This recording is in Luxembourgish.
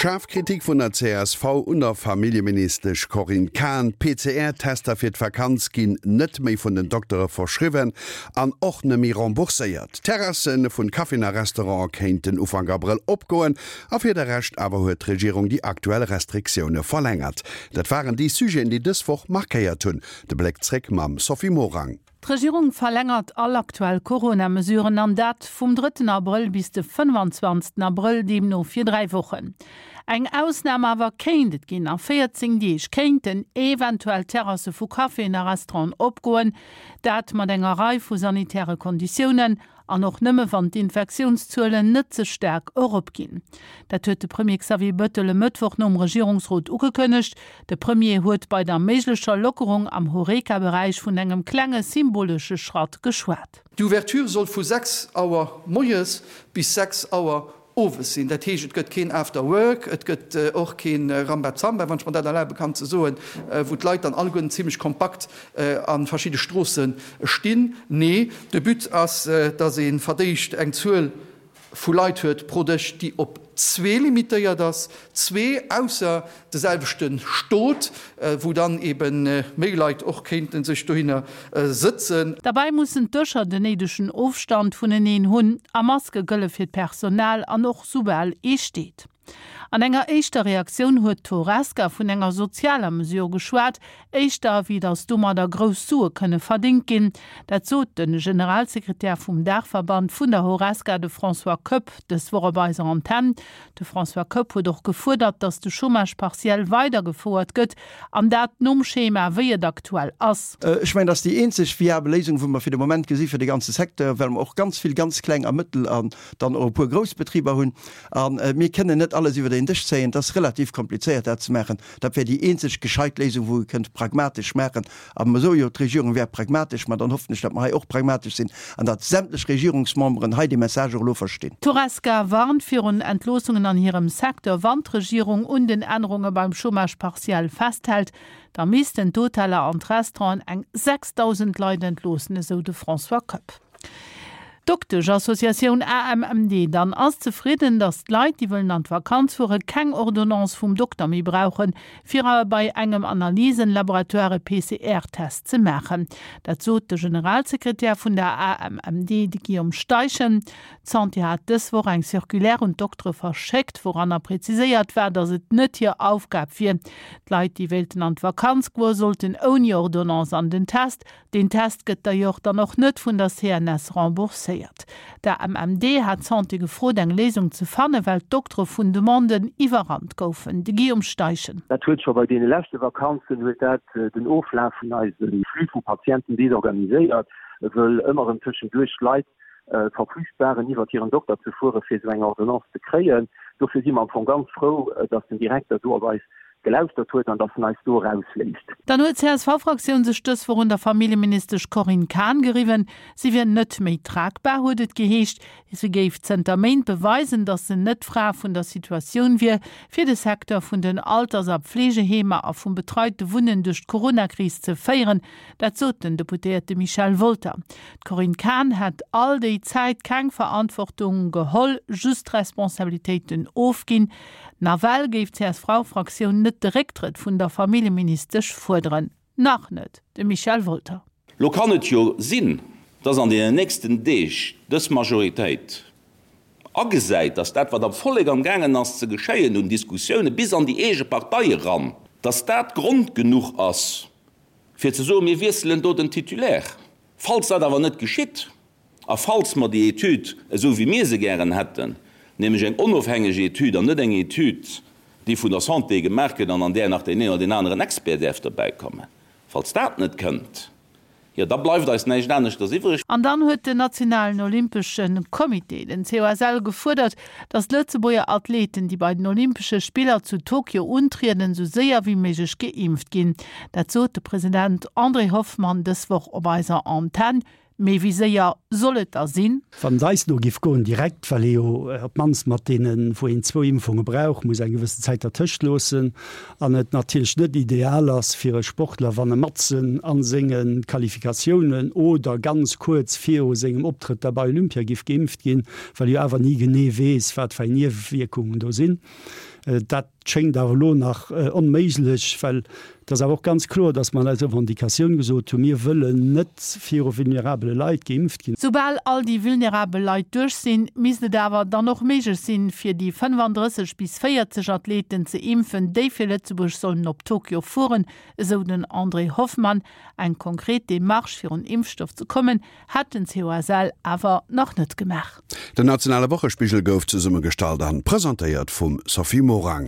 Schaarf Kritik vun der csv un der Familljeministesch Corinne Cahen, PCR-Tester fir d'Vakanz ginn net méi vun den Doktere verschriwwen an och net méi rembourséiert. D'Terrasse vun Caféen a Restaurante kéinten Ufank Abrëll opgoen a fir de Rescht awer huet d'Regierung déi aktuell Restriktioune verlängert. Dat waren déi Sujeten, déi dës Woch markéiert hunn. De Bléck zréck mam Sophie Morang. D'Regierung verlängert all aktuell Corona-Mesuren, an dat vum drëtten Abrëll bis de 25 Abrëll, deemno fir 3 Wochen. Eng Ausnam awer kéint et ginn, A 14 Deeg kéinten eventuell Terrasse vu Caféen a Restauranten opgoen, dat mat enger Rei vu sanitäre Konditiounen. An och nëmme wann d'Infektiounszuelen net ze staark eropginn. Dat huet de Premier Xavier Bettel e Mëttwoch nom Regierungsrot ugekënnegt. De Premier huet bei der méiglecher Lockerung am Horeca-Beräich vun engem klenge symbolesche Schratt geschwat. D'Ouverture soll vu 6 Auer moies bis 6 Auer owes sinn. Dat heescht, et gëtt keen After Work, et gëtt och kee Rambazamba, wann ech mer dat erlabe kann ze soen, wou d'Leit dann alleguerten zimlech kompakt a verschidde Stroosse stinn. Nee, de But ass, dass ee verdéischt eng Zuel vu Leit huet pro Dësch, déi op zwee limitéiert ass, zwee ausser de selwechte Stot, wou dann ebe méi Leit och kéinte sech dohinner sëtzen. Derbäi mussen d'Dëscher den néidegen Ofstand vuneneen hunn a Maske gëlle fir d'Personal an och soubal ee steet. An enger éischter Reaktioun huet d'Horesca vun enger sozialer Mesure geschwat, éischter wéi datt domadder grouss Sue kënne verdéngt ginn. Dat sot de Generalsekretär vum Daachverband vun der Horesca, de François Koepp, dës Woch op eiser Antenn. De François Koepp huet och gefuerdert, datt de Chômage partiel weidergefouert gëtt, an dat nom Schema, wéi et aktuell ass. Ech mengen, dat ass déi eenzeg viabel Léisung, wou mer fir de Moment gesi fir de ganze Secteur, well mer och ganz vill ganz kleng a mëttel an dann och e puer grouss Betriber hunn. A mir kënnen net alles iwwer een Dësch zéien. Et ass relativ komplizéiert, dat ze maachen. Dat wär déi eenzeg gescheit Léisung, wou ee kënnt pragmatesch maachen. A mer soe jo, d'Regierung wär pragmatesch, ma dann hoffen ech, datt mer hei och pragmatesch sinn an datt sämtlech Regierungsmemberen hei dee Message och elo verstinn. D'Horesca warnt virun Entloossungen an hirem Secteur. Wann d'Regierung un den Ännerunge beim Chômage partiel festhält, da missten d'Hoteller an d'Restauranten eng 6.000 Leit entloossen, esou de François Koepp. D'Doktesch-Associatioun AMMD dann ass zefridden, datt d'Leit, déi wëllen an d'Vakanz fuere keng Ordonnance vum Dokter méi brauchen, fir bei engem Analysen-Laboratoire e PCR-Test ze maachen. Dat sot de Generalsekretär vun der AMMD, de Guillaume Steichen. D'Santé hat dës Woch eng Circulaire un d'Doktere verschéckt, wouranner preziséiert war, datt et net hir Aufgab wier. D'Leit, déi wéilten an d'Vakanz goen, sollten ouni Ordonnance an den Test. Deen Test gëtt d'ailleurs dann och net vun der CNS rembourséiert. D'AMMD hat d'Santé gefrot, eng Léisung ze fannen, well d'Doktere vun Demanden iwwerrannt goufen. De Guillaume Steichen. Dat huet scho bei deene leschte Vakanzen huet dat den Oflaf vun eise Flux vu Patienten desorganiséiert, wëll ëmmer erëm tëschenduerch Leit verflücht waren, iwwert hiren Dokter ze fuere fir esou eng Ordonnance ze kréien. Dofir si mer am Fong ganz frou, dass den Direkter do op eis gelauschtert huet an dass en eis do erausléisst. Dann huet d'CSV-Fraktioun sech dës Woch un der Familljeministesch Corinne Cahen geriwwen. Si wier net méi tragbar, huet et geheescht. Si géif zënter Méint beweisen, datt se net d'Fra vun der Situatioun wier, fir de Secteur vun den Alters a Pflegeheemer a vum betreite Wunnen duerch d'Coronakris ze féieren. Dat sot den Deputéierte Michel Wolter. D'Corinne Cahen hätt all déi Zäit keng Verantwortung geholl, just Responsabilitéiten ofginn. Nawell géif d'CSV-Fraktioun net de Récktrëtt vun der Familljeministesch fuerderen. Nach net, de Michel Wolter. Lo kann et jo sinn, dass an deenen nächsten Deeg dës Majoritéit agesäit, dass dat, wat am Vollek am gaangen ass ze geschéien un Diskussioune bis an déi eege Partei eran, dass dat Grond genuch ass, fir ze soen, mir wiesselen do den Titulaire. Falls dat awer net geschitt a falls mer déi Etüd, esou wéi mir se gären hätten, nämlech eng onofhängeg Etüd an net eng Etüd, déi vun der Santé gemaach gëtt an an där nach deen een oder deen aneren Expert däerf derbäikommen, falls dat net kënnt, jo da bleift eis näischt aneschters iwwreg. An dann huet den nationalen Olympesche Comité, den COSL, gefuerdert, datt d'Lëtzebuerger Athleten, déi bei den Olympesche Spiller zu Tokio untrieden, esou séier wéi méiglech geimpft ginn. Dat sot de President André Hoffmann dës Woch op eiser Antenn. Mee wéi séier soll et da sinn? Wann et eis no giff goen, direkt, well ee jo op d'mannst mat deenen, wou een zwou Impfunge brauch, muss eng gewëssen Zäit dertëscht loossen an et natierlech net ideal ass fir e Sportler, wann e matzen a senge Qualifikatiounen oder ganz kuerz viru sengem Optrëtt da bei Olympia giff geimpft ginn, well e jo awer ni genee weess, wat fir eng Niewewierkungen do sinn. Dat schéngt awer elo nach onméiglech, well et ass awer och ganz kloer, datt mer an eiser Revendicatioun gesot hunn, mir wëllen net viru vulnerabele Leit geimpft ginn. Soubal all déi vulnerabel Leit duerch sinn, misst et awer dann och méiglech sinn, fir déi 35 bis 40 Athleten ze impfen, déi fir Lëtzebuerg sollen op Tokio fueren, esou den André Hoffmann. Eng konkret Demarche fir un Impfstoff ze kommen, hätt den COSL awer nach net gemaach. Den nationale Wochespigel gouf zesummegestallt an presentéiert vum Sophie Morang.